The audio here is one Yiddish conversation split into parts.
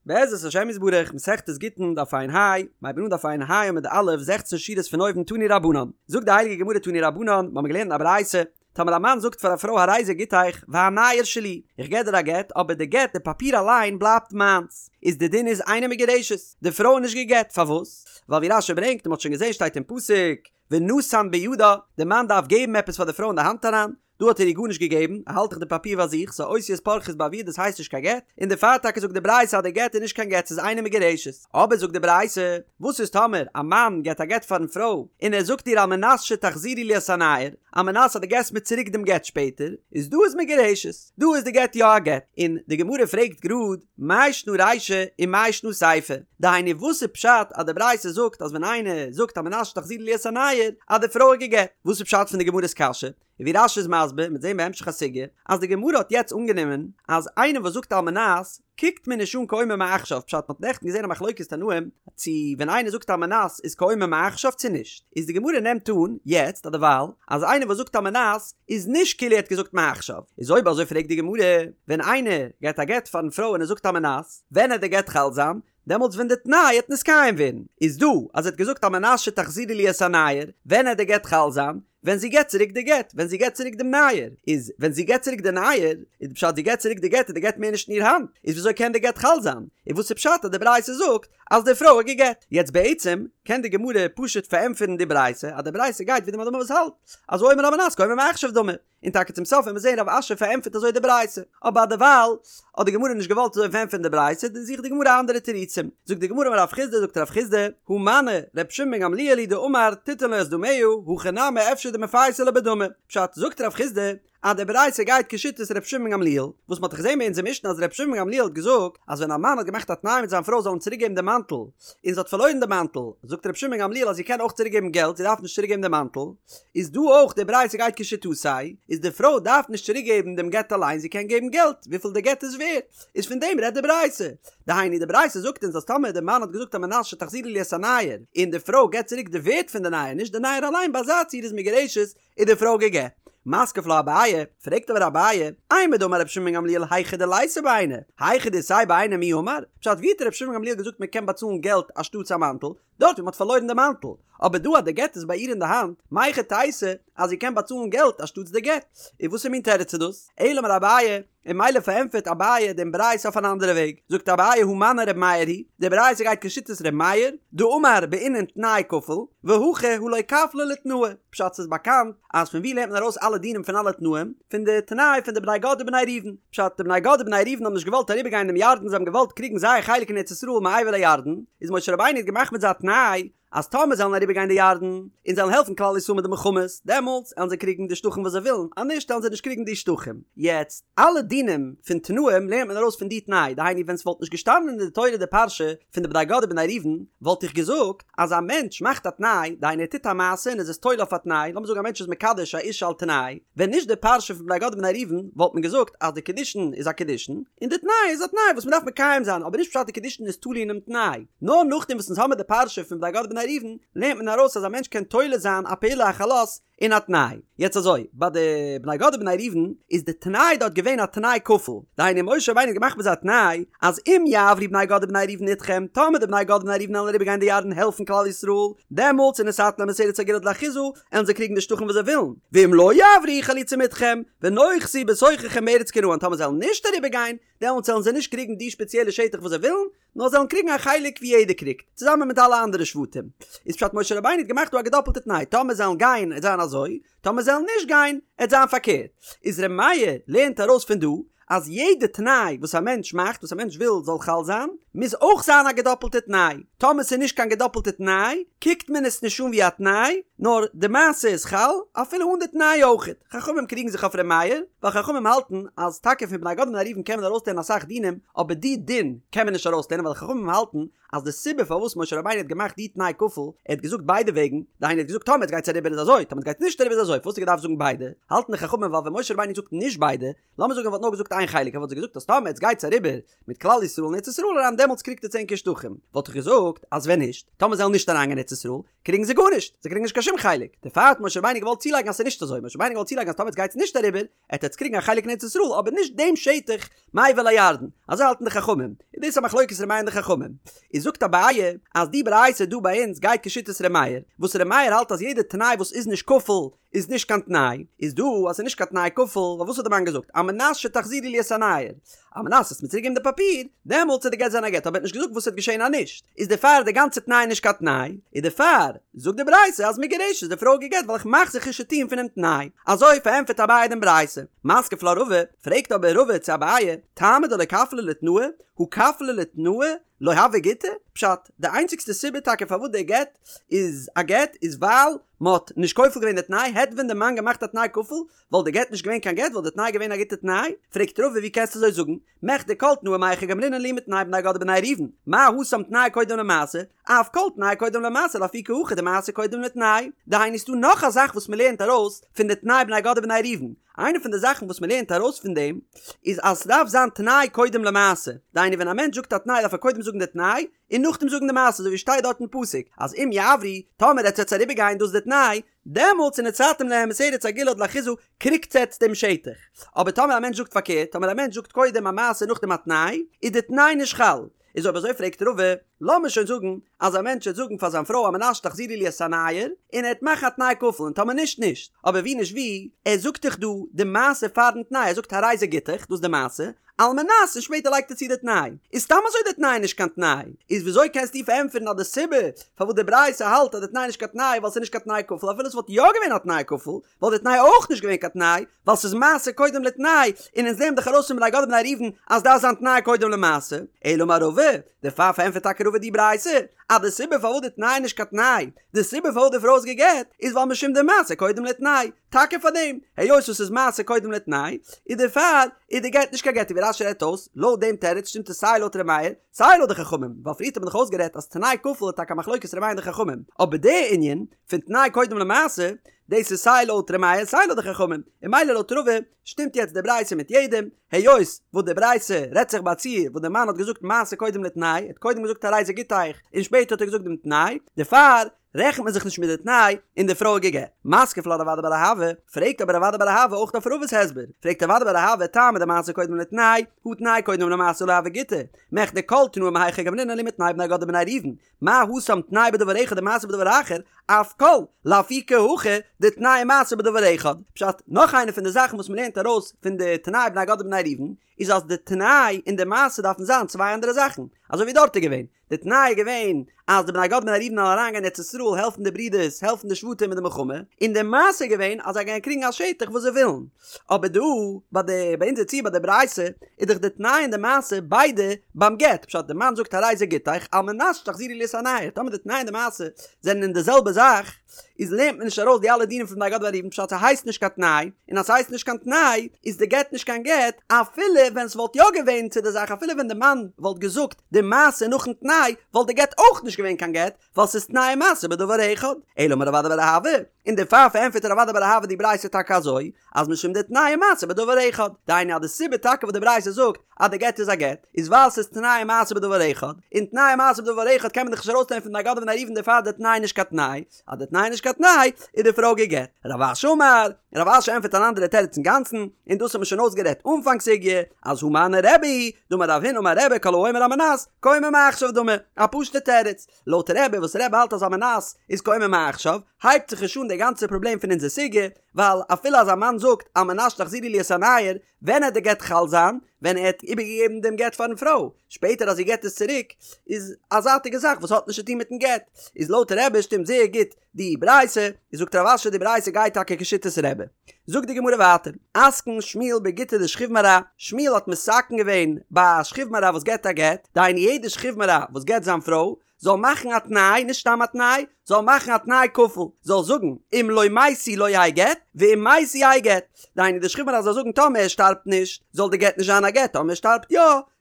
בעזרת השם יתברך, מסכת גיטין, דף ע"ה, מ'הייבן אן דף ע"ה עמוד א', זעכצן שורות פון אויבן תנו רבנן. זאגט די הייליגע גמרא תנו רבנן, מ'האמיר געלערנט אין א ברייתא, טאמער א מאן זאגט פאר א פרוי הרי זה גיטיך והנייר שלי, איך געב דיר א גט אבער די גט די פאפיר אליין בלייבט מיינס, איז די דין איז אינה מגורשת, די פרוי איז נישט גע'גט, פארוואס? ווייל ווי רש"י ברענגט און מ'האט שוין געזען שטייט אין פסוק, ונתן בידה, די מאן דארף געבן עפעס פאר די פרוי אין די האנט אריין, דא האט ער איר גארנישט געגעבן, ער האלט דאך די פאפיר ביי זיך, ס'איז אותיות פורחות באוויר דאס הייסט נישט קיין גט, און דערפאר טאקע זאגט די ברייתא אז די גט איז נישט קיין גט ס'איז אינה מגורשת, אבער זאגט די ברייתא, וואס איז טאמער א מאן געט א גט פארן פרוי, און ער זאגט איר על מנת שתחזירי לי את הנייר, על מנת אז דו געסט מיר צוריק דעם גט שפעטער, איז דא איז מגורשת, דא איז די גט יא א גט, און די גמרא פרעגט גראד, מאי שנא רישא ומאי שנא סיפא, דהיינו וואס איז פשט אז די ברייתא זאגט אז ווען איינער זאגט על מנת שתחזירי לי את הנייר אז די פרוי איז גע'גט, וואס איז פשט פון די גמרא'ס קשיא? און ווי רש"י איז מסביר, מ'וועט זען בהמשך הסוגיא, אז די גמרא האט יעצט אנגענומען אז איינער וואס זאגט על מנת קוקט מען נישט אן כאומר מעכשיו, פשט מ'האט נעכטן געזען א מחלוקת תנאים צו ווען איינער זאגט על מנת איז כאומר מעכשיו צו נישט, איז די גמרא נעמט אן יעצט אז דערווייל אז איינער וואס זאגט על מנת איז נישט כאילו ער האט געזאגט מעכשיו, איז אויב אזוי פרעגט די גמרא, ווען איינער געט א גט פארן פרוי און ער זאגט על מנת, ווען עט די גט חל זיין? דעמאלטס ווען די תנאי עט נתקיים ווערן, איז דא אז ער האט געזאגט על מנת שתחזירי לי את הנייר, ווען עט די גט חל זיין? ווען זי געט צוריק די גט, ווען זי געט צוריק דעם נייר, איז ווען זי געט צוריק די נייר, איז די פשט זי געט צוריק די גט איז די גט מער נישט אין איר האנט, איז וויאזוי קען די גט חל זיין? און וואס איז פשט אז די ברייתא זאגט אז די פרוי איז גע'גט? יעצט בעצם קען די גמרא פשוט פארענטפערן די ברייתא אז די ברייתא גייט ווי די מאן דאמר וואס האלט אז האומר על מנת כאומר מעכשיו דמי, און טאקע צום סוף וועט מען זען רב אשי פארענטפערט אזוי די ברייתא, אבער דערווייל האט די גמרא נישט געוואלט אזוי פארענטפערן די ברייתא, זוכט די גמרא אנדערע תירוצים, זאגט די גמרא אמר רב חסדא זאגט רב חסדא, הא מני ר' שמעון בן גמליאל היא דאמר תיתן לו את דמיה, הכא נמי אפשר דמפייסא ליה בדמי, פשט, זאגט רב חסדא, אז די ברייתא גייט כשיטת ר' שמעון בן גמליאל, וואס מען האט דאך געזען ביי אונזער משנה אז ר' שמעון בן גמליאל האט געזאגט אז ווען א מאן האט געמאכט א תנאי מיט זיין פרוי זאל אים צוריק געבן די מאנטל, און זי האט פארלוירן די מאנטל, זאגט ר' שמעון בן גמליאל אז זי קען אויך צוריק געבן געלט, זי דארף נישט צוריק געבן די מאנטל, איז דא אויך די ברייתא גייט כשיטתו, איז די פרוי דארף נישט צוריק געבן דעם גט אליין זי קען געבן געלט וויפיל די גט איז ווערט, איז פון דעם רעדט די ברייתא, דהיינו די ברייתא זאגט אונז אז טאמער די מאן האט געזאגט על מנת שתחזירי לי את הנייר, און די פרוי געבט צוריק די ווערט פון די נייר נישט די נייר אליין ביי אזא ציור איז מגורשת איז די פרוי גע'גט. מתקיף לה אביי, פרעגט אבער אביי, אימר דאמר רבי שמעון בן גמליאל היכא דליתיה בעיניה, היכא דאיתיה בעיניה מי אמר, פשט ווי האט רבי שמעון בן גמליאל געזאגט מען קען באצאלן געלט אנשטאטס א מאנטל, דארט ווי מען האט פארלוירן די מאנטל, אבער דא אז די גט איז ביי איר אין די האנט, מהיכי תיתי אז זי קען באצאלן געלט אנשטאטס די גט? און וואסער מין תירוץ איז דאס? אלא אמר אביי, און ממילא פארענטפערט אביי דעם ברייתא אויף אן אנדערע וועג, זאגט אביי הא מני ר' מאיר היא, די ברייתא גייט כשיטת ר' מאיר, דאמר בעינן תנאי כפול, והכא הא לא כפליה לתנאי, פשט ס'איז באקאנט אז פון ווי לערנט מען ארויס אלע דינים פון אלע תנאים? פון די תנאי פון די בני גד ובני ראובן, פשט די בני גד ובני ראובן האבן נישט געוואלט אריבערגיין דעם ירדן זיי האבן געוואלט קריגן זייער חלק אין ארץ ישראל מעבר לירדן, איז משה רבינו האט געמאכט מיט זיי א תנאי אז טאמער זיי וועלן אריבערגיין די ירדן און זיי וועלן העלפן כלל ישראל מיט די מלחמות דעמאלטס עלן זיי קריגן די שטחים וואס זיי ווילן אז נישט עלן זיי נישט קריגן די שטחים. יעצט אלע דינים פון תנאים לערנט מען ארויס פון די תנאי דהיינו ווען ס'וואלט נישט געשטאנען אין די תורה די פרשה פון די בני גד ובני ראובן וואלט איך געזאגט אז א מענטש מאכט א תנאי, דהיינו ער טוט א מעשה און איז עס תולה אויף א תנאי, לאמיר זאגן א מענטש איז מקדש א אישה על תנאי, ווען נישט די פרשה פון בני גד ובני ראובן וואלט מען געזאגט אז די קידושין איז א קידושין, און די תנאי איז א תנאי וואס מען דארף מקיים זיין, אבער נישט פשט די קידושין איז תלוי אינעם תנאי. נאר נאכדעם וואס אונז האמיר די פרשה פון בני גד ובני ראובן לערנט מען ארויס אז א מענטש קען תולה זיין א פעולה א חלות אין א תנאי. יעצט אזוי, ביי די בני גד ובני ראובן איז די תנאי דארט געווען א תנאי כפול, דהיינו משה רבינו האט געמאכט מיט זיי א תנאי אז אם יעברו בני גד ובני ראובן אתכם, טאמער די בני גד ובני ראובן וועלן אריבער גיין די ירדן העלפן כלל ישראל, דעמאלטס ונתתם להם את ארץ הגלעד לאחוזה, עלן זיי קריגן די שטחים וואס זיי ווילן, ואם לא יעברו חלוצים אתכם, ונאחזו בתוככם בארץ כנען, טאמער זיי וועלן נישט אריבער גיין, דעמאלטס וועלן זיי נישט קריגן די שפעציעלע שטח וואס זיי ווילן, נאר זיי וועלן קריגן א חלק ווי יעדער קריגט, צוזאמען מיט אלע אנדערע שבטים. איז פשט משה רבינו האט געמאכט דא א געדאפלטע תנאי, טאמער זיי וועלן גיין עט זיין אזוי, טאמער זיי וועלן נישט גיין עט זיין פארקערט. איז ר' מאיר לערנט ארויס פון דא, אז יעדע תנאי וואס א מענטש מאכט, וואס א מענטש וויל זאל חל זיין, מוז אויך זיין א געדאפלטע תנאי. טאמער ס'איז נישט קיין געדאפלטע תנאי, קוקט מען עס נישט אן ווי א תנאי, נאר די מעשה איז חל אפילו אן די תנאי אויכעט. חכמים קריגן זיך אויף ר' מאיר, ווייל חכמים האלטן אז טאקע פון בני גד ובני ראובן קען מען ארויסלערנען אסאך דינים, אבער די דין קען מען נישט ארויסלערנען ווייל חכמים האלטן אז די סיבה פארוואס משה רבינו האט געמאכט די תנאי כפול, ער האט געזאגט ביידע וועגן, דהיינו ער האט געזאגט טאמער עטס גייטס אריבער איז אזוי, טאמער עטס גייטס נישט אריבער איז אזוי, פארוואס האט ער געדארפט זאגן ביידע? האלטן די חכמים ווייל ווען משה רבינו זאגט נישט ביידע, לאמיר זאגן ער וואלט נאר געזאגט איין חלק, ער וואלט זיי געזאגט אז טאמער עטס גייטס אריבער מיט כלל ישראל אין ארץ ישראל אריין דעמאלטס קריגט עטס ענקער שטחים, וואלט איך געזאגט אז ווען נישט, טאמער זיי וועלן נישט אריינגיין ארץ ישראל, קריגן זיי גארנישט, זיי קריגן נישט קיין שום חלק, דערפאר האט משה רבינו געוואלט צולייגן אז ס'איז נישט אזוי, משה רבינו געוואלט צולייגן אז טאמער עטס גייטס נישט אריבער, עט עטס קריגן א חלק אין ארץ ישראל אבער נישט דעם שטח מעבר לירדן, אזוי האלטן די חכמים, איז דאס א מחלוקת ר' מאיר און די חכמים, איז זאגט אביי אז די ברייתא דא ביי אונז גייט כשיטת ר' מאיר, וואס ר' מאיר האלט אז יעדע תנאי וואס איז נישט כפול איז נישט קיין תנאי, איז דא אז ס'איז נישט קיין תנאי כפול, ווייל וואס האט די מאן געזאגט, על מנת שתחזירי לי את הנייר, על מנת וועסט מיר צוריק געבן די פאפיר, דעמאלטס וועט די גט זיין א גט, אבער ער האט נישט געזאגט וואס וועט געשען אז נישט, איז דערפאר די גאנצע תנאי נישט קיין תנאי, איז דערפאר זאגט די ברייתא אז מגורשת די פרוי גע'גט ווייל איך מאך זיך נישט צו טון פונעם תנאי, אזוי פארענטפערט אביי דעם ברייתא. מתקיף לה רבא, פרעגט אבער רבא צו אביי, טעמא דלא כפליה לתנאי, הא כפליה לתנאי לא הוי גיטא? פשט, די איינציגסטע סיבה טאקע פארוואס די גט איז א גט איז ווייל מ'האט נישט כופל געווען די תנאי, העט ווען די מאן געמאכט א תנאי כפול וואלט די גט נישט געווען קיין גט וואלט די תנאי געווען א גוטע תנאי? פרעגט רבא ווי קענסטו אזוי זאגן? מכדי כל תנאי מהיכא גמרינן להו מתנאי בני גד ובני ראובן, מה התם תנאי קודם למעשה, אף כל תנאי קודם למעשה לאפוקי הכא דמעשה קודם לתנאי. דהיינו ס'דא נאך א זאך וואס מ'לערנט ארויס פון די תנאי בני גד ובני ראובן, איינע פון די זאכן וואס מ'לערנט ארויס פון דעם איז אז ס'דארף זיין תנאי קודם למעשה, דהיינו ווען א מענטש זאגט א תנאי דארף ער קודם זאגן די תנאי, און נאכדעם זאגן די מעשה אזוי ווי שטייט דארט אין פסוק אז אם יעברו, טאמער עטס וועטס אריבערגיין דאס איז די תנאי, דעמאלטס ונתתם להם את ארץ הגלעד לאחוזה קריגטס עטס דעם שטח. אבער טאמער א מענטש זאגט פארקערט, טאמער א מענטש זאגט קודם א מעשה נאכדעם א תנאי, איז די תנאי נישט חל. איז אויב אזוי פרעגט רבא, לאמיר שוין זאגן אז א מענטש וועט זאגן פאר זיין פרוי על מנת שתחזירי לי את הנייר, און ער וועט מאכן א תנאי כפול און טאמער נישט נישט. אבער ווי נישט ווי, ער זאגט דאך דא די מעשה פארן תנאי, ער זאגט הרי זה גיטך, דאס איז די מעשה, על מנת און שפעטער לייגט ער צו די תנאי, איז סתם אזוי די תנאי נישט קיין תנאי, איז וויאזוי קענסטו פארענטפערן אז די סיבה פארוואס די ברייתא האלט אז די תנאי איז נישט קיין תנאי ווייל ס'איז נישט קיין תנאי כפול אפילו ס'וואלט יא געווען א תנאי כפול וואלט די תנאי אויך נישט געווען קיין תנאי ווייל ס'איז מעשה קודם לתנאי און אונז לערנען דאך ארויס פון בני גד ובני ראובן אז דארף זיין תנאי קודם למעשה אלא אמר רבא דערפאר פארענטפערט טאקע רבא די ברייתא אז די סיבה פארוואס די תנאי איז נישט קיין תנאי די סיבה פארוואס די פרוי איז גע'גט איז ווייל משום דמעשה קודם לתנאי טאקע פאר דעם, היות עס איז מעשה קודם לתנאי, איז דערפאר איז די גט נישט קיין גט, ווי רש"י רעדט אויס, לויט דעם תירוץ שטימט עס סיי לויט ר' מאיר, סיי לויט די חכמים, ווייל פריערט האט מען דאך אויסגערעדט אז תנאי כפול איז טאקע א מחלוקת ר' מאיר און די חכמים, אבער די ענין פון תנאי קודם למעשה, דאס איז סיי לויט ר' מאיר סיי לויט די חכמים, און ממילא לויט רבא שטימט יעצט די ברייתא מיט יעדעם, היות וואס די ברייתא רעדט זיך ביי א ציור וואס די מאן האט געזאגט מעשה קודם לתנאי, ער האט קודם געזאגט הרי זה גיטך און שפעטער האט ער געזאגט דעם תנאי, דערפאר רעכנט מען זיך נישט מיט די תנאי און די פרוי איז גע'גט. מתקיף לה רב אדא בר אהבה, פרעגט אבער רב אדא בר אהבה אויך אויף רבא'ס הסבר, פרעגט רב אדא בר אהבה טעמא דמעשה קודם לתנאי, הא תנאי קודם למעשה לא הוי גיטא, מכדי כל תנאי מהיכא גמרינן להו מתנאי בני גד ובני ראובן, מה התם תנאי בדבר אחד ומעשה בדבר אחר, אף כל, לאפוקי הכא, דתנאי ומעשה בדבר אחד. פשט, נאך איינע פון די זאכן וואס מ'לערנט ארויס פון די תנאי בני גד ובני ראובן, איז אז די תנאי און די מעשה דארפן זיין צוויי אנדערע זאכן, אזוי ווי דארט איז געווען, די תנאי איז געווען אז די בני גד ובני ראובן זאלן אריינגיין אין ארץ ישראל העלפן די ברידערס העלפן די שבטים מיט די מלחמה, און די מעשה איז געווען אז זיי גייען קריגן א שטח וואס זיי ווילן. אבער דא ביי די ביי אונזער ציור ביי די ברייתא איז דאך די תנאי און די מעשה ביידע ביים גט, פשט די מאן זאגט הרי זה גיטך על מנת שתחזירי לי את הנייר, טאמער די תנאי און די מעשה זענען אין די זעלבע זאך, איז לערנט מען נישט ארויס די אלע דינים פון בני גד ובני ראובן פשט ס'הייסט נישט קיין תנאי, און אז ס'הייסט נישט קיין תנאי איז די גט נישט קיין גט אפילו ווען ס'וואלט יא געווען צו די זאך אפילו ווען די מאן וואלט געזאגט די מעשה נאכן תנאי וואלט די גט אויך נישט געווען קיין גט ווייל ס'איז תנאי ומעשה בדבר אחד אלא אמר רב אדא בר אהבה און דערפאר פארענטפערט רב אדא בר אהבה די ברייתא טאקע אזוי אז משום דתנאי ומעשה בדבר אחד, דהיינו אז די סיבה טאקע וואס די ברייתא זאגט אז די גט איז א גט, איז ווייל ס'איז תנאי ומעשה בדבר אחד, און תנאי ומעשה בדבר אחד קען מען דאך נישט ארויסלערנען פון בני גד ובני ראובן דערפאר איז די תנאי נישט קיין תנאי, אז די תנאי איז נישט קיין תנאי, איז די פרוי גע'גט. רב אשי אמר, רב אשי ענטפערט אן אנדערע תירוץ אינגאנצן, און דאס האט מען שוין אויסגערעדט אנפאנג סוגיא, אז הא מני רבי היא, דאמר רב הונא אמר רבי כל האומר על מנת, כאומר מעכשיו דמי, א פשוט'ע תירוץ, לויט רבי וואס רבי האלט אז על מנת איז כאומר מעכשיו, הייבט זיך נישט אן די גאנצע פראבלעם פון אונזער סוגיא, ווייל אפילו אז א מאן זאגט על מנת שתחזירי לי את הנייר, ווען העט די גט חל זיין? ווען ער האט איבערגעגעבן דעם גט פארן פרוי, שפעטער אז זי געט עס צוריק, איז א זייטיגע זאך וואס האט נישט צו טון מיטן גט, איז לויט רבי שטימט זייער גוט די ברייתא, איז זאגט רב אשי די ברייתא גייט טאקע כשיטת רבי. זאגט די גמרא ווייטער, אתקין שמואל בגיטא דשכיב מרע, שמואל האט מתקן געווען ביי א שכיב מרע וואס געט א גט, דהיינו יעדע שכיב מרע וואס גט זיין פרוי, זאל מאכן א תנאי, נישט סתם א תנאי, זאל מאכן א תנאי כפול, זאל זאגן, אם לא מתי לא יהא גט, ואם מתי יהא גט. דהיינו די שכיב מרע זאל זאגן טאמער ער שטארבט נישט, זאל די גט נישט זיין א גט, טאמער ער שטארבט יא,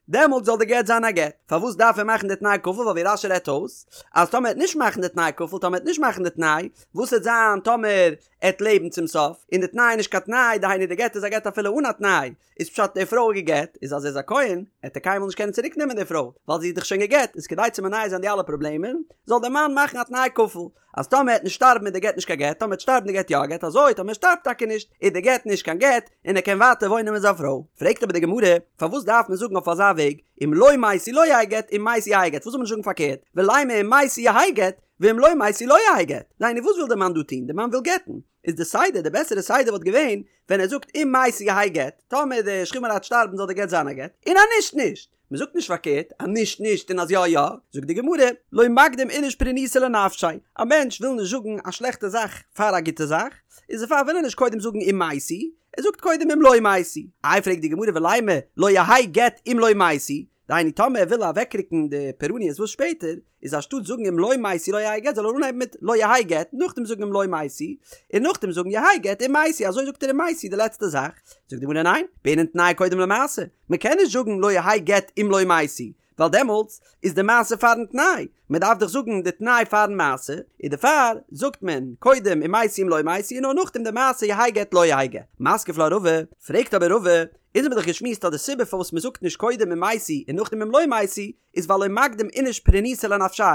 דעמאלט זאל די גט זיין א גט. פארוואס דארף ער מאכן די תנאי כפול ווייל ווי רש"י רעדט אויס אז טאמער ער וועט נישט מאכן די תנאי כפול טאמער ער וועט נישט מאכן די תנאי וואס וועט זיין טאמער ער וועט לעבן צום סוף און די תנאי איז נישט קיין תנאי דהיינו די גט איז א גט אפילו אן א תנאי איז פשט די פרוי איז גע'גט איז אז ער איז א כהן עט ער קיינמאל נישט קענען צוריק נעמען די פרוי ווייל זי איז דאך שוין גע'גט איז כדי צו מונע זיין די אלע פראבלעמען זאל די מאן מאכן א תנאי כפול אז טאמער ער עט נישט שטארבן איז די גט נישט קיין גט טאמער ער עט שטארבן די גט יא א גט אזוי טאמער ער שטארבט טאקע נישט איז די גט נישט קיין גט און ער קען ווייטער וואוינען מיט זיין פרוי. פרעגט אבער די גמרא, פארוואס דארף מען זאגן אויף אזא וועג, אם לא מתי לא יהא גט אם מתי יהא גט, פארוואס זאל מען נישט זאגן פארקערט, ולימא אם מתי יהא גט, ואם לא מתי לא יהא גט, דהיינו וואס וויל די מאן דא טון, די מאן וויל גט'ן, איז די סדר, די בעסערע סדר וואלט געווען, ווען ער זאגט אם מתי יהא גט, טאמער די שכיב מרע עט שטארבן זאל די גט זיין א גט, און אז נישט נישט. מען זאגט נישט פארקערט, אז נישט נישט און אז יא יא, זאגט די גמרא, לא מקדים איניש פורענותא לנפשיה, א מענטש וויל נישט זאגן א שלעכטע זאך פאר א גוטע זאך, איז דערפאר וויל ער נישט קודם זאגן אם מתי, ער זאגט קודם אם לא מתי. איי פרעגט די גמרא ולימא לא יהא גט אם לא מתי, דהיינו טאמער ער וויל אוועקרוקן די פורעניות וואס שפעטער, איז אנשטאט זאגן אם לא מתי לא יהא גט זאל ער אנהייבן מיט לא יהא גט נאכדעם זאגן אם לא מתי און נאכדעם זאגן יהא גט אם מתי אזוי זאגט ער אם מתי די לעצטע זאך זאגט די גמרא ניין בעינן תנאי קודם למעשה מען קען נישט זאגן לא יהא גט אם לא מתי ווייל דעמאלטס איז די מעשה פארן תנאי מען דארף דאך זאגן די תנאי פארן מעשה און דערפאר זאגט מען קודם אם מתי אם לא מתי און נאר נאכדעם די מעשה יהא גט לא יהא גט מתקיף לה רבא פרעגט אבער רבא אונז האבן דאך געשמועסט אז די סיבה פארוואס מען זאגט נישט קודם אם מתי און נאכדעם אם לא מתי איז ווייל לא מקדים איניש פורענותא לנפשיה.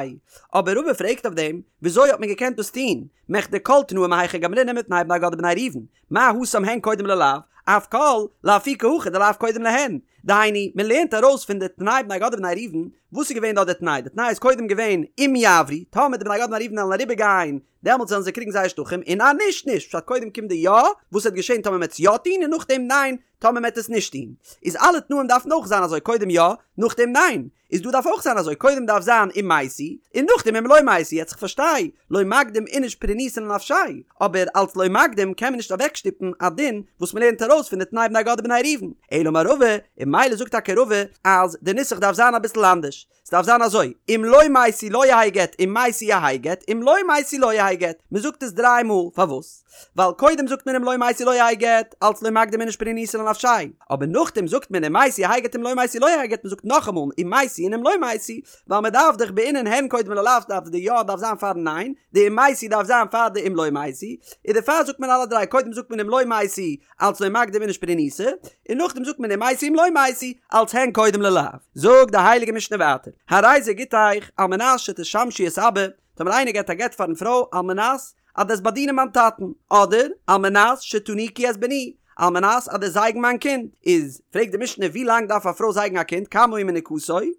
אבער רבא פרעגט אויף דעם, וויאזוי האט מען געקענט דאס טון, מכדי כל תנאי מהיכא גמרינן מתנאי בני גד ובני ראובן, מה התם הן קודם ללאו, אף כל, לאפוקי הכא דלאו קודם להן. דהיינו, מען לערנט ארויס פון די תנאי בני גד ובני ראובן, וואס איז געווען דארט די תנאי? די תנאי איז קודם געווען אם יעברו, טאמער די בני גד ובני ראובן וועלן אריבער גיין, דעמאלטס וועלן זיי קריגן זייער שטחים, און אז נישט, נישט, פשט קודם קומט די יא, וואס וועט געשען טאמער מען וועט עס יא טון, און נאכדעם ניין, טאמער מ'עט עס נישט טון, איז אלע תנאים דארפן אויך זיין אזוי קודם יא, נאכדעם ניין, איז דא דארף אויך זיין אזוי קודם דארף זיין אם מתי, און נאכדעם אם לא מתי, יעצט כ'פארשטיי, לא מקדים איניש פורענותא לנפשיה, אבער אלץ לא מקדים קען מען נישט אוועקשטופן א דין וואס מ'לערנט ארויס פון די תנאי בני גד ובני ראובן, אלא אמר רבא, און ממילא זאגט טאקע רבא אז די נוסח דארף זיין אביסל אנדערש. ס'דארף זיין אזוי, אם לא מתי לא יהא גט, אם מתי יהא גט, אם לא מתי לא יהא גט. מ'זאגט עס דריי מאל, פארוואס? ווייל קודם זאגט מען אם לא מתי לא יהא גט, אלץ לא מקדים איניש פורענותא לנפשיה. אבער נאכדעם זאגט מען אם מתי יהא גט אם לא מתי לא יהא גט, מ'זאגט נאכאמאל אם מתי און אם לא מתי, ווייל מ'דארף דאך בעינן הן קודם ללאו דארף די יא דארף זיין פארן ניין, די אם מתי דארף זיין פאר די אם לא מתי, און דערפאר זאגט מען אלע דריי, קודם זאגט מען אם לא מתי, אלץ לא מקדים איניש פורענותא, און נאכדעם זאגט מען אם מתי אם לא מתי, אלץ הן קודם ללאו. זאגט די הייליגע משנה ווייטער, הרי זה גיטך על מנת שתשמשי את אבא, טאמער איינער געבט א גט פארן פרוי על מנת אז דו וועסט באדינען מיין טאטן, אדער על מנת שתניקי את בני, על מנת אז דו וועסט זייגן מיין קינד, איז פרעגט די משנה ווי לאנג דארף א פרוי זייגן א קינד, כמה היא מניקתו,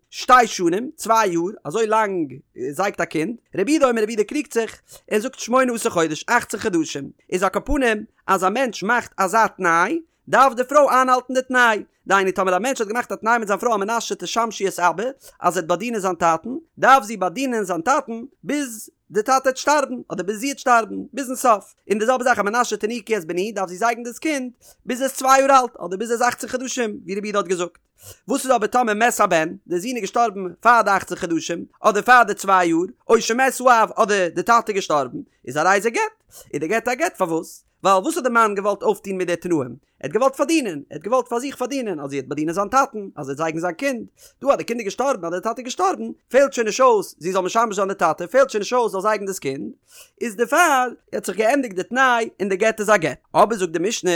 שתי שנים, צוויי יאר, אזוי לאנג זייגט א קינד, רבי יהודה אומר רבי יהודה קריגט זיך, ער זאגט שמונה עשר חודש, אכצן חדשים, איז על כל פנים, אז א מענטש מאכט אזא תנאי, דארף די פרוי איינהאלטן די תנאי. דהיינו טאמער א מענטש האט געמאכט א תנאי מיט זיין פרוי על מנת שתשמשי את אבא, אז זי וועט באדינען זיין טאטן, דארף זי באדינען זיין טאטן ביז די טאטע וועט שטארבן, אדער ביז זי וועט שטארבן, ביזן סוף. און די זעלבע זאך על מנת שתניקי את בני, דארף זי זייגן דאס קינד ביז ער איז צוויי יאר אלט, אדער ביז ער איז אכצן חדשים, ווי רבי יהודה האט געזאגט. וואס איז אבער טאמער מת הבן, די זון איז געשטארבן פאר די אכצן חדשים, אדער פאר די צוויי יאר, או שמת האב, אדער די טאטע איז געשטארבן, איז הרי זה גט. איז די גט א גט פארוואס? ווייל וואס האט די מאן געוואלט אויפטון מיט די תנאים? ער האט געוואלט פארדינען, ער האט געוואלט פאר זיך פארדינען אז זי וועט באדינען זיין טאטן, אז זי וועט זייגן זיין קינד. דא אז די קינד איז געשטארבן, אז די טאטע איז געשטארבן, פעלט שוין נישט אויס זי זאל משמש זיין די טאטע, פעלט שוין נישט אויס זאל זייגן דאס קינד, איז דערפאר האט זיך געענדיגט די תנאי און די גט איז א גט. אבער זאגט די משנה,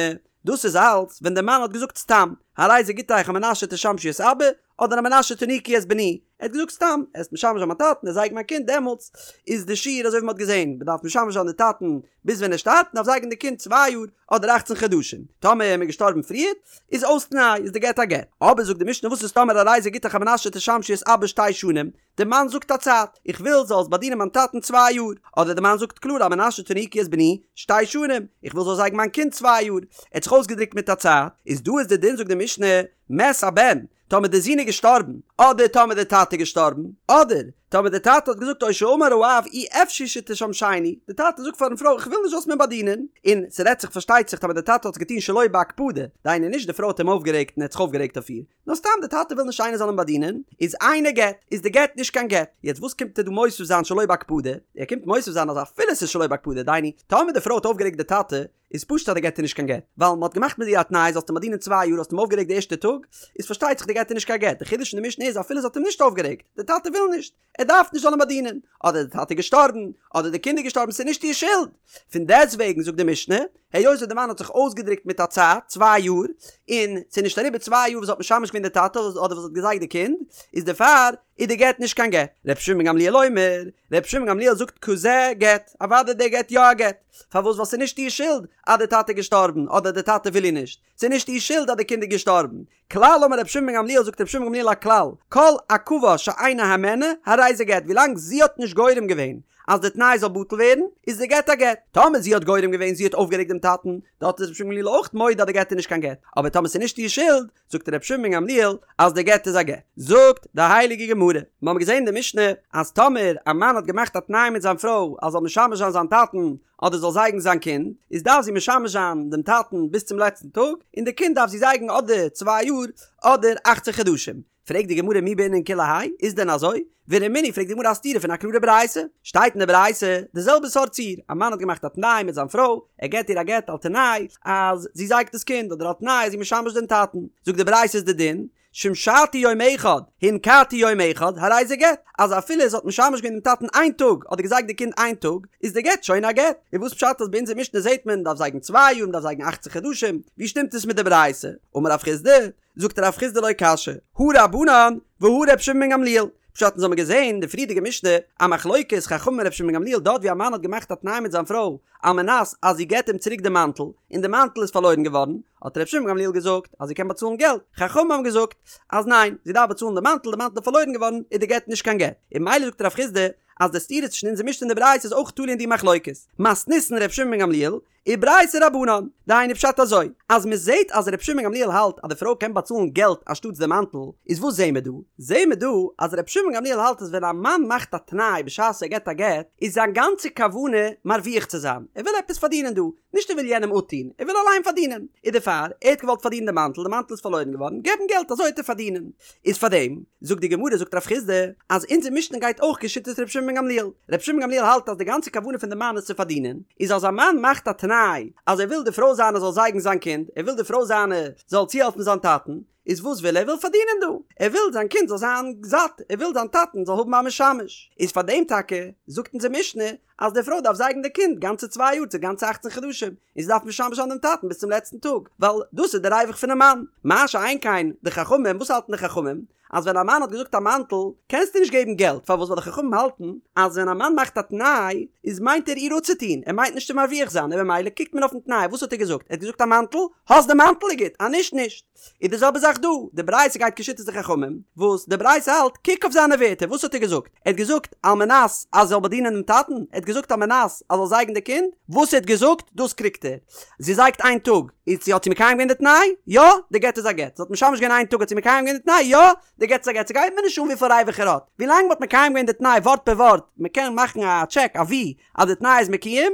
דאס איז אלץ ווען די מאן האט געזאגט סתם, הרי זה גיטך על מנת שתשמשי את אבא, אדער על מנת שתניקי את בני, ער האט געזאגט סתם, עסט משמש זיין מיין טאטן, עסט זייגן מיין קינד, דעמאלטס איז די שיעור אזוי ווי מען האט געזען, מען דארף משמש זיין די טאטן ביז ווען ער שטארבט, מען דארף זייגן די קינד צוויי יאר אדער אכצן חדשים, טאמער איז מען געשטארבן פריער, איז אויס תנאי, איז די גט א גט. אבער זאגט די משנה וואס איז טאמער הרי זה גיטך על מנת שתשמשי את אבא שתי שנים, די מאן זאגט א צייט, איך וויל זאלסט באדינען מיין טאטן צוויי יאר, אדער די מאן זאגט קלאר על מנת שתניקי את בני שתי שנים, איך וויל זאלסט זייגן מיין קינד צוויי יאר, ער האט זיך אויסגעדרוקט מיט א צייט, איז דא איז די דין זאגט די משנה, מת הבן, טאמער די זון איז געשטארבן, אדער טאמער די טאטע איז געשטארבן, אדער. טאמער די טאטע האט געזאגט או שאמר האב אי אפשי שתשמשני, די טאטע זאגט פארן פרוי איך וויל נישט זאלסט מיר באדינען, און ס'רעדט זיך פארשטייט זיך טאמער די טאטע האט עס געטון שלא בהקפדה, דהיינו נישט די פרוי האט אים אויפגערעגט און ער האט זיך אויפגערעגט אויף איר, נאר סתם די טאטע וויל נישט איינער זאל אים באדינען, איז אינו גט, איז די גט נישט קיין גט. יעצט וואס קומט ער דא מוסיף זיין שלא בהקפדה? ער קומט מוסיף זיין אז אפילו ס'איז שלא בהקפדה, דהיינו, טאמער די פרוי האט אויפגערעגט די טאטע, איז פשוט אז די גט איז נישט קיין גט, ווייל מ'האט געמאכט מיט איר א תנאי זאלסט אים באדינען צוויי יאר האסט אים אויפגערעגט די ערשטע טאג, איז פארשטייט זיך די גט איז נישט קיין גט, די חידוש אין די משנה איז אפילו זי האט אים נישט אויפגערעגט, די טאטע וויל נישט, ער דארף נישט זאל אים באדינען, אדער די טאטע איז געשטארבן, אדער די קינד איז געשטארבן ס'איז נישט איר שולד, פון דעסטוועגן זאגט די משנה, היות וואס די מאן האט זיך אויסגעדרוקט מיט א צייט, צוויי יאר, און ס'איז נישט אריבער צוויי יאר וואס האט משמש געווען די טאטע אדער וואס האט געזייגט די קינד, איז דערפאר איז די גט נישט קיין גט. ר' שמעון בן גמליאל אומר, ר' שמעון בן גמליאל זאגט כזה גט, אוודאי די גט יא א גט, פארוואס ווייל ס'איז נישט איר שולד אז די טאטע איז געשטארבן אדער די טאטע וויל איר נישט, ס'איז נישט איר שולד אז די קינד איז געשטארבן. כלל אמר רבי שמעון בן גמליאל זאגט רבי שמעון בן גמליאל א כלל, כל עכבה שאינה הימנה הרי זה גט ווילאנג זי האט נישט גורם געווען אז די תנאי זאל בטל ווערן איז די גט א גט, טאמער זי האט גורם געווען זי האט אויפגערעגט דעם טאטן דארט איז רבי שמעון בן גמליאל אויך מודה אז די גט איז נישט קיין גט, אבער טאמער ס'איז נישט איר שולד זאגט רבי שמעון בן גמליאל אז די גט איז א גט. זאגט די הייליגע גמרא, מיר האבן געזען אין די משנה אז טאמער א מאן האט געמאכט א תנאי מיט זיין פרוי אז זאל משמש זיין זיין טאטן אדער זאל זייגן זיין קינד, איז דארף זי משמש זיין דעם טאטן ביז צום לעצטן טאג, און די קינד דארף זי זייגן אדער צוויי יאר אדער אכצען חדשים. פרעגט די גמרא מי בעינן כולי האי, איז דען אזוי? ורמינהי פרעגט די גמרא א סתירה פון א קלארע ברייתא, שטייט אין די ברייתא די זעלבע סארט ציור, א מאן האט געמאכט א תנאי מיט זיין פרוי, ער געט איר א גט על תנאי אז זי זייגט דאס קינד אדער על תנאי אז זי משמש דעם טאטן, זאגט די ברייתא איז די דין, שמשתי יום אחד, הנקתי יום אחד, הרי זה גט, אז אפילו זי האט משמש געווען דעם טאטן איין טאג, אדער געזייגט די קינד איין טאג, איז די גט שוין א גט. און וואס פשט אז ביי אונזער משנה זעט מען דארף זייגן צוויי יאר, מ'דארף זייגן אכצען חדשים, ווי שטימט עס מיט די ברייתא? אמר רב חסדא, זאגט רב חסדא לא קשיא, הא רבנן והא ר' שמעון בן גמליאל, פשט אונז האבן געזען די פריערדיגע משנה א מחלוקת חכמים און ר' שמעון בן גמליאל דארט ווי א מאן האט געמאכט א תנאי מיט זיין פרוי על מנת אז זי געט אים צוריק די מאנטל און די מאנטל איז פארלוירן געווארן האט ר' שמעון בן גמליאל געזאגט אז זי קען באצאלן געלט חכמים האבן געזאגט אז ניין זי דארף באצאלן די מאנטל די מאנטל איז פארלוירן געווארן איז די גט נישט קיין גט און ממילא זאגט רב חסדא אז די סתירה צווישן אונזער משנה און די ברייתא איז אויך תלוי אין די מחלוקת מתניתין ר' שמעון בן גמליאל וברייתא רבנן, דהיינו פשט אזוי, אז מען זעהט אז ר' שמעון גמליאל האלט אז די פרוי קען באצאלן געלט אנשטאטס די מאנטל, איז וואס זעהן מיר דא? זעהן מיר דא אז ר' שמעון גמליאל האלט אז ווען א מאן מאכט א תנאי בשעת ער געבט א גט, איז זיין גאנצע כוונה מרוויח צו זיין, ער וויל עפעס פארדינען דא, נישט ער וויל יענעם אפטון, ער וויל אליין פארדינען, איז דערפאר, ער האט געוואלט פארדינען די מאנטל, די מאנטל איז פארלוירן געווארן, געב אים געלט אזוי וועט ער פארדינען. איז פארדעם, זאגט די גמרא זאגט רב חסדא, אז אונזער משנה גייט אויך כשיטת ר' שמעון בן גמליאל, ר' שמעון בן גמליאל האלט אז די גאנצע כוונה פון די מאן איז צו פארדינען, איז אז א מאן מאכט א תנאי אז ער וויל די פרוי זיינע זאל זייגן זיין קינד, ער וויל די פרוי זיינע זאל צוהעלפן זיין טאטן, איז וואס וויל ער? ער וויל פארדינען דא, ער וויל זיין קינד זאל זיין זאט, ער וויל זיין טאטן זאל האבן א משמש, איז פארדעם טאקע זאגט אונזער משנה אז די פרוי דארף זייגן די קינד גאנצע צוויי יאר צו גאנצע אכצן חדשים, און זי דארף משמש זיין דעם טאטן ביז צום לעצטן טאג, ווייל דאס איז די ריווח פונעם מאן. מה שאין כן די חכמים, וואס האלטן די חכמים? אז ווען א מאן האט געזאגט א מאנטל, קענסטו נישט געבן געלט, פארוואס? ווייל די חכמים האלטן אז ווען א מאן מאכט א תנאי, איז מיינט ער איר אפצוטון, ער מיינט נישט צו מרוויח זיין, און במילא קוקט מען אויפן תנאי, וואס האט ער געזאגט? ער האט געזאגט א מאנטל, האסט די מאנטל איז גוט, אז נישט נישט. איז די זעלבע זאך דא, די ברייתא גייט כשיטת די חכמים, וואס די ברייתא האלט, קוק אויף זיינע ווערטער, וואס האט ער געזאגט? ער האט געזאגט על מנת אז זי זאל באדינען דעם טאטן? ער האט געזאגט על מנת אז זאל זייגן די קינד? וואס ער האט געזאגט, דאס קריגט ער. זי זייגט איין טאג, איז צו האט זי מקיים געווען די תנאי? יא, די גט איז א גט. זי האט משמש געווען איין טאג האט זי מקיים געווען די תנאי? יא, די גט איז א גט. ס'גייט מיר נישט אן וויפיל ריווח ער האט, ווילאנג מ'האט מקיים געווען די תנאי ווארט פער ווארט, מ'קען מאכן א טשעק, א וי, אז די תנאי איז מקוים,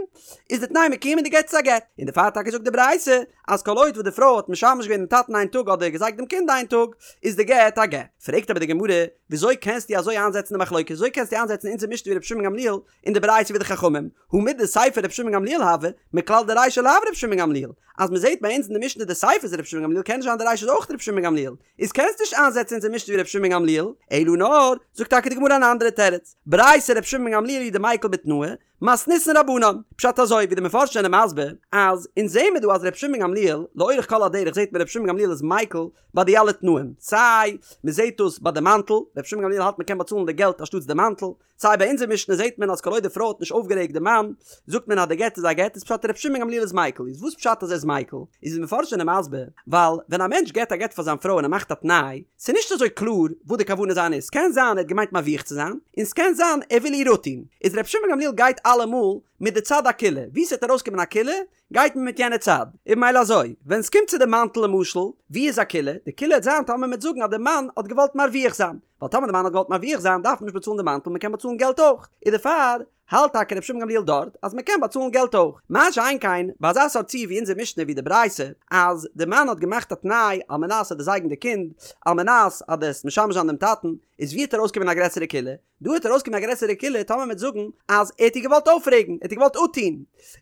איז די תנאי מקוים און די גט איז א גט. און דערפאר טאקע זאגט די ברייתא, אז כל עוד וואס די פרוי האט משמש געווען דעם טאטן איין טאג אדער געזייגט דעם קינד איין טאג, איז די גט א גט. פרעגט אבער די גמרא, וויאזוי קענסטו אזוי איינזעצן די מחלוקת? וויאזוי קענסטו איינזעצן אונזער משנה ווי רבי שמעון גמליאל און די ברייתא ווי די חכמים? הא מדסיפא רבי שמעון גמליאל הוי, מכלל דרישא לאו רבי שמעון גמליאל. אז מען זעט ביי אונז אין די משנה די סיפא איז רבי שמעון גמליאל קען נישט זיין די רישא איז אויך רבי שמעון גמליאל. איז קענסט נישט איינזעצן אונזער משנה ווי רבי שמעון גמליאל, אלא נאר, זאגט טאקע די גמרא אן אנדערע תירוץ, ברייתא רבי שמעון גמליאל היא דמיקל בתנאי, מתניתין רבנן, פשט אזוי ווי די מפרשים זענען מסביר, אז אונז זעהן מיר דא אז רבי שמעון גמליאל, לאורך כל הדרך זעהט מען רבי שמעון גמליאל איז מיקל ביי די אלע תנאים, סיי מען זעהט דאס ביי די מאנטל, רבי שמעון גמליאל האלט מען קען באצאלן די געלט אנשטאטס די מאנטל, סיי ביי אונזער משנה זעהט מען אז כל עוד די פרוי האט נישט אויפגערעגט די מאן, זאגט מען אז די גט איז א גט, איז פשט רבי שמעון גמליאל איז מיקל, איז וואס פשט אז ער איז מיקל? איז די מפרשים זענען מסביר, ווייל ווען א מענטש געט א גט פאר זיין פרוי און ער מאכט א תנאי, ס'איז נישט אזוי קלאר וואס די כוונה זיינע איז, ס'קען זיין ער האט געמיינט מרוויח צו זיין, און ס'קען זיין ער וויל איר אפטון, איז רבי שמעון גמליאל גייט אלעמאל מיט די צד הקולא, ווי ס'וועט ארויסקומען א קולא, גייט מען מיט יענע צד. און ממילא אזוי, ווען ס'קומט צו די מאנטל למשל, ווי איז א קולא? די קולא וועט זיין טאמער מ'וועט זאגן אז די מאן האט געוואלט מרוויח זיין, ווייל טאמער די מאן האט געוואלט מרוויח זיין דארף מען נישט באצאלן די מאנטל מ'קען באצאלן געלט אויך, און דערפאר האלט טאקע רבי שמעון גמליאל דארט אז מ'קען באצאלן געלט אויך. מה שאין כן ביי אזא סארט ציור ווי אונזער משנה ווי די ברייתא אז די מאן האט געמאכט א תנאי על מנת אז דו זייגן די קינד, על מנת אז דו וועסט משמש זיין דעם טאטן, איז ווי וועט ארויסקומען א גרעסערע קולא? דא וועט ארויסקומען א גרעסערע קולא טאמער מ'וועט זאגן אז ער האט איר געוואלט אויפרעגן, ער האט איר געוואלט אפטון.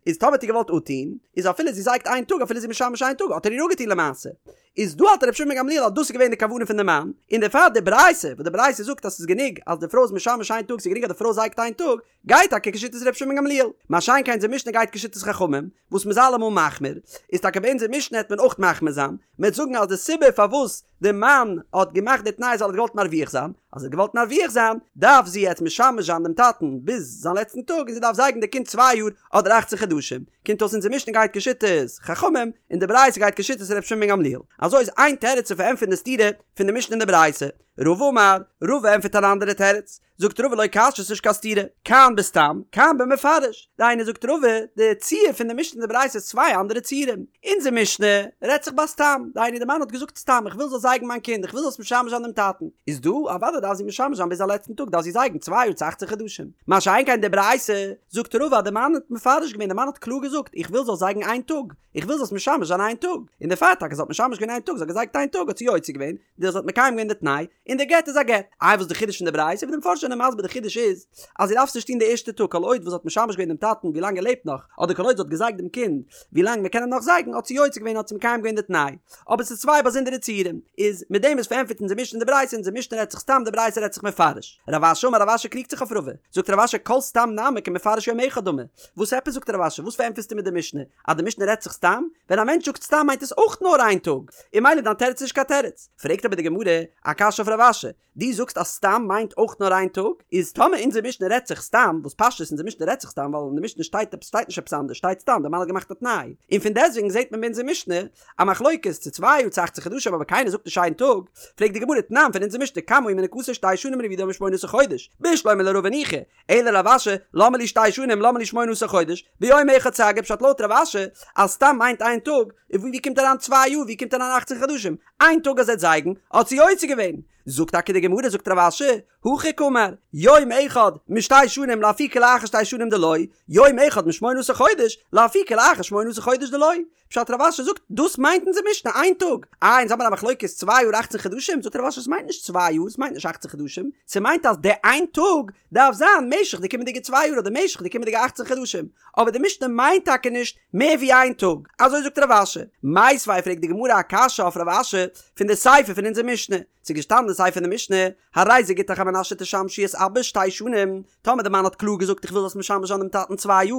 איז טאמער האט איר געוואלט אפטון, איז אפילו זי זייגט איין טאג אפילו זי משמש איין טאג האט ער איר אפגעטון למעשה. איז דא האלט רבי שמעון בן גמליאל אז דאס איז געווען די כוונה פון די מאן, און דערפאר די ברייתא, וואס די ברייתא זאגט אז ס'איז גענוג אז די פרוי איז משמש איין טאג, ס'איז גענוג אז די פרוי זייגט איין טאג, גייט טאקע כשיטת רבי שמעון בן גמליאל. מה שאין כן אונזער משנה גייט כשיטת חכמים, וואס מ'איז אלעמאל מחמיר, איז טאקע ביי אונזער משנה העט מען אויך מחמיר זיין, מ'העט זאגן אז די סיבה פארוואס די מאן האט געמאכט די תנאי איז ווייל ער האט געוואלט מרוויח זיין, אז ער האט געוואלט מרוויח זיין, דארף זי יעצט משמש זיין דעם טאטן ביז זיין לעצטן טאג און זי דארף זייגן די קינד צוויי יאר אדער אכצן חדשים. קומט אויס אונזער משנה גייט כשיטת חכמים און די ברייתא גייט כשיטת ר' שמעון בן גמליאל. אזוי איז איין תירוץ צו פארענטפערן די סתירה פון די משנה און די ברייתא. רבא אמר, רבא ענטפערט אן אנדערע תירוץ. זאגט רבא לא קשיא ס'נישט קיין סתירה, כאן בסתם, כאן במפרש. דהיינו זאגט רבא, די ציור פון די משנה און די ברייתא איז צוויי אנדערע ציורים. אונזער משנה רעדט זיך ביי סתם, דהיינו די מאן האט געזאגט סתם איך וויל זאלסט זייגן מיין קינד, איך וויל זאלסט משמש זיין דעם טאטן. איז דא, אוודאי דארף זי משמש זיין ביז זיין לעצטן טאג, דארף זי זייגן צוויי יאר צו אכצען חדשים. מה שאין כן די ברייתא, זאגט רבא אז די מאן האט מפרש געווען, די מאן האט קלאר געזאגט איך וויל זאלסט זייגן איין טאג, איך וויל זאלסט משמש זיין איין טאג. און דערפאר טאקע זי האט משמש געווען איין טאג, זי האט געזייגט איין טאג האט זי יוצא געווען, דאס האט מקיים געווען די תנאי, און די גט איז א גט. איי וואס איז די חידוש פון די ברייתא? ווי די מפרשים זענען מסביר די חידוש איז, אז זי דארף עס נישט טון די ערשטע טאג, כל עוד וואס זי האט משמש געווען דעם טאטן ווי לאנג ער לעבט נאך, אדער כל עוד זי האט געזייגט דעם קינד ווי לאנג מען קען אים נאך זייגן, האט זי יוצא געווען האט זי מקיים געווען די תנאי. אבער ס'איז צוויי באזונדערע ציורים. איז מיט דעם איז פארענטפערט אונזער משנה און די ברייתא, אונזער משנה רעדט זיך סתם די ברייתא רעדט זיך מפרש. רב אשי אמר רב אשי קריגט זיך אויף רבא. זאגט רב אשי כל סתם נמי כמפרש יום אחד דמי. וואס עפעס זאגט רב אשי? וואס פארענטפערסטו מיט די משנה? אז די משנה רעדט זיך סתם? ווען א מענטש זאגט סתם מיינט עס אויך נאר איין טאג, און ממילא דיין תירוץ איז נישט קיין תירוץ. פרעגט אבער די גמרא א קשיא אויף רב אשי, דו זאגסט אז סתם מיינט אויך נאר איין טאג, איז טאמער אונזער משנה רעדט זיך סתם, וואס פשטות אונזער משנה רעדט זיך סתם ווייל אין די משנה שטייט עפעס שטייט נישט עפעס אנדערש שטייט סתם די מאן האט געמאכט א תנאי, און פון דעסטוועגן זעט מען ביי אונזער משנה א מחלוקת צו צוויי יאר צו אכצען חדשים אבער קיינער זאגט נישט איין טאג, פרעגט די גמרא תנן פון אונזער משנה כמה היא מניקתו שתי שנים והעבידו משמונה עשר חודש, בשלמא לרבא ניחא, אלא לרב אשי, למה לי שתי שנים למה לי שמונה עשר חודש, ביום אחד סגי פשט לויט רב אשי אז סתם מיינט איין טאג, און ווי קומט אריין צוויי יאר ווי קומט אריין אכצען חדשים, איין טאג אז ער וועט זייגן האט זי יוצא געווען, זאגט טאקע די גמרא זאגט רב אשי, הכי קאמר, יום אחד משתי שנים לאפוקי לאחר שתי שנים דלא, יום אחד משמונה עשר חודש לאפוקי לאחר שמונה עשר חודש דלא, פשט רב אשי זאגט דאס מיינט אונזער משנה איין טאג, איי אונז האבן א מחלוקת צוויי יאר אכצען חדשים, זאגט רב אשי עס מיינט נישט צוויי יאר עס מיינט נישט אכצען חדשים, ס'מיינט אז די איין טאג דארף זיין משך די קומענדיגע צוויי יאר אדער משך די קומענדיגע אכצען חדשים, אבער די משנה מיינט טאקע נישט מער ווי איין טאג, אזוי זאגט רב אשי. מיתיבי פרעגט די גמרא א קשיא אויף רב אשי פון די סיפא פון אונזער משנה, ס'איז געשטאנען די סיפא פון די משנה, הרי זה גיטך על מנת שתשמשי את אבא שתי שנים, טאמער די מאן האט קלאר געזאגט איך וויל זאלסט משמש זיין דעם טאטן צוויי יאר,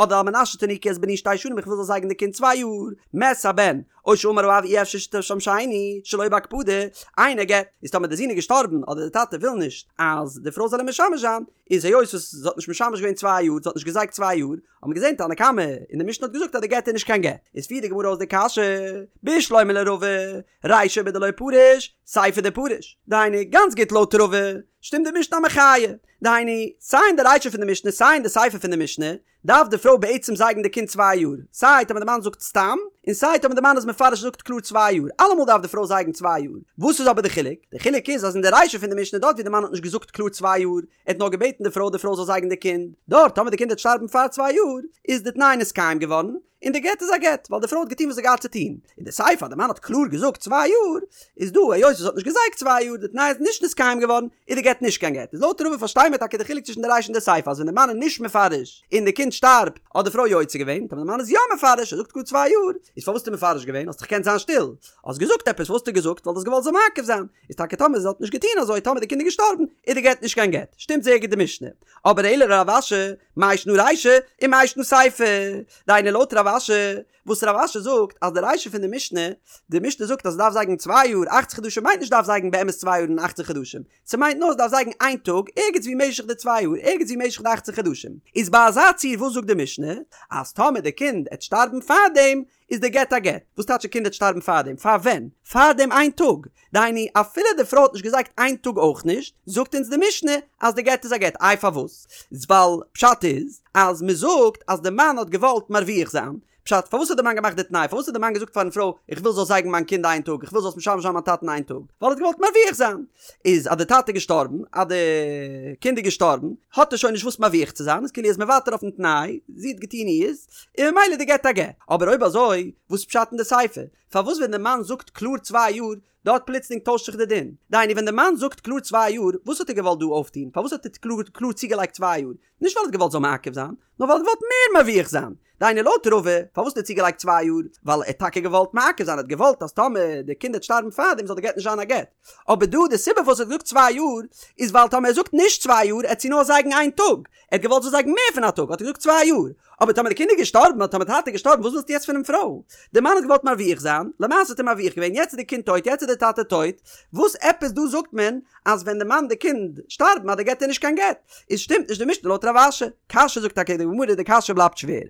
אדער על מנת שתניקי את בני שתי שנים איך וויל זאלסט זייגן די קינד צוויי יאר, מת הבן, או שאמר האב אי אפשר שתשמשני, שלא בהקפדה, אינו גט, איז טאמער די זון איז געשטארבן אדער די טאטע וויל נישט אז די פרוי זאל אים משמש זיין, איז היות וואס זי האט נישט משמש געווען צוויי יאר, זי האט נישט געזייגט צוויי יאר, האט מען געזען תנא קמא און די משנה האט געזאגט אז די גט איז נישט קיין גט, איז פירט די גמרא אויס די קשיא, בשלמא לרבא, רישא בדלא פריש, סיפא דפריש, דהיינו גאנץ גוט לויט רבא, שטימט די משנה א מחיה, דהיינו סיי אין די רישא פון די משנה סיי אין די סיפא פון די משנה, דארף די פרוי בעצם זייגן די קינד צוויי יאר, סיי טאמער די מאן זאגט סתם, און סיי טאמער די מאן איז מפרש און זאגט קלאר צוויי יאר, אלעמאל דארף די פרוי זייגן צוויי יאר, וואס איז אבער די חילוק? די חילוק איז אז אין די רישא פון די משנה דארט ווי די מאן האט נישט געזאגט קלאר צוויי יאר, ער האט נאר געבעטן די פרוי די פרוי זאל זייגן די קינד, דארט טאמער די קינד וועט שטארבן פאר צוויי יאר, איז די תנאי נתקיים געווארן, און די גט איז א גט, ווייל די פרוי האט געטון וואס זי האט געהאט צו טון. אין די סיפא אז די מאן האט קלאר געזאגט צוויי יאר, איז דא היות זי האט נישט געזייגט צוויי יאר, די תנאי איז נישט נתקיים געווארן, איז די גט נישט קיין גט. איז לויט רבא פארשטיי מיר טאקע די חילוק צווישן די רישא און די סיפא אז ווען די מאן איז נישט מפרש און די קינד שטארבט האט די פרוי יוצא געווען, טאמער די מאן איז יא מפרש ער זאגט קלאר צוויי יאר, איז פארוואס האסטו מפרש געווען? האסט דאך געקענט זיין שטיל. האסט געזאגט עפעס, וואס האסטו געזאגט? ווייל דו האסט געוואלט זאל מעכב זיין. איז טאקע טאמער זי האט נישט געטון אזוי טאמער די קינד איז געשטארבן איז די גט נישט קיין גט. שטימט זייער גוט די משנה. אבער אלא לרב אשי, מאי שנא רישא ומאי שנא סיפא. דהיינו לויט רב אשי. וואס רב אשי זאגט אז די רישא פון די משנה, די משנה זאגט אז ס'דארף זייגן צוויי יאר אכצן חדשים מיינט נישט דארף זייגן באמת צוויי יאר און אכצן חדשים, ס'מיינט נאר ס'דארף זייגן איין טאג ערגעץ ווי משך די צוויי יאר ערגעץ ווי משך די אכצן חדשים. איז ביי אזא ציור וואס זאגט די משנה? אז טאמער די קינד עט שטארבן פארדעם איז די גט א גט. וואס טייטש די קינד עט שטארבן פארדעם? פאר ווען? פאר דעם איין טאג. דהיינו אפילו די פרוי האט נישט געזייגט איין טאג אויך נישט, זאגט אונז די משנה אז די גט איז א גט. איי פארוואס? ווייל פשט איז אז מ'זאגט אז די מאן האט געוואלט מרוויח זיין, פשט, פארוואס האט די מאן געמאכט די תנאי? פארוואס האט די מאן געזאגט פארן פרוי, איך וויל זאלסט זייגן מיין קינד איין טאג, איך וויל זאלסט משמש זיין מיין טאטן איין טאג? ווייל ער האט געוואלט מרוויח זיין. איז אז די טאטע איז געשטארבן, אז די קינד איז געשטארבן, האט ער שוין נישט וואס מרוויח צו זיין, איז כאילו ער איז מוותר אויפן תנאי, זי האט געטון אירס, און ממילא די גט א גט. אבער אויב אזוי, וואס פשט אין די סיפא? פארוואס ווען די מאן זאגט קלאר צוויי יאר, דארט פלוצלינג טוישט זיך די דין? דהיינו ווען די מאן זאגט קלאר צוויי יאר, וואס האט ער געוואלט דא אויפטון? פארוואס האט ער קלאר קלאר צוגעלייגט צוויי יאר? נישט ווייל ער האט געוואלט זאל מעכב זיין, נאר ווייל ער האט געוואלט מער מרוויח זיין. דהיינו לויט רבא, פארוואס האט ער צוגעלייגט צוויי יאר? ווייל ער האט טאקע געוואלט מעכב זיין, ער האט געוואלט אז טאמער די קינד וועט שטארבן פארדעם זאל די גט נישט זיין א גט. אבער דא די סיבה פארוואס ער האט געזאגט צוויי יאר, איז ווייל טאמער ער זאגט נישט צוויי יאר עט זי נאר זייגן איין טאג, ער האט געוואלט זאל זייגן מער פון א טאג האט ער געזאגט צוויי יאר. אבער טאמער די קינד איז געשטארבן אדער טאמער די טאטע איז געשטארבן וואס ווילסטו יעצט פונעם פרוי? די מאן האט געוואלט מרוויח זיין, למעשה האט ער מרוויח געווען, יעצט איז די קינד טויט, יעצט איז די טאטע טויט, וואס עפעס דא זאגט מען אז ווען די מאן די קינד שטארבן אז די גט איז נישט קיין גט? איז שטימט נישט די משנה לויט רב אשי. קשיא זאגט טאקע די גמרא די קשיא בלייבט שווער.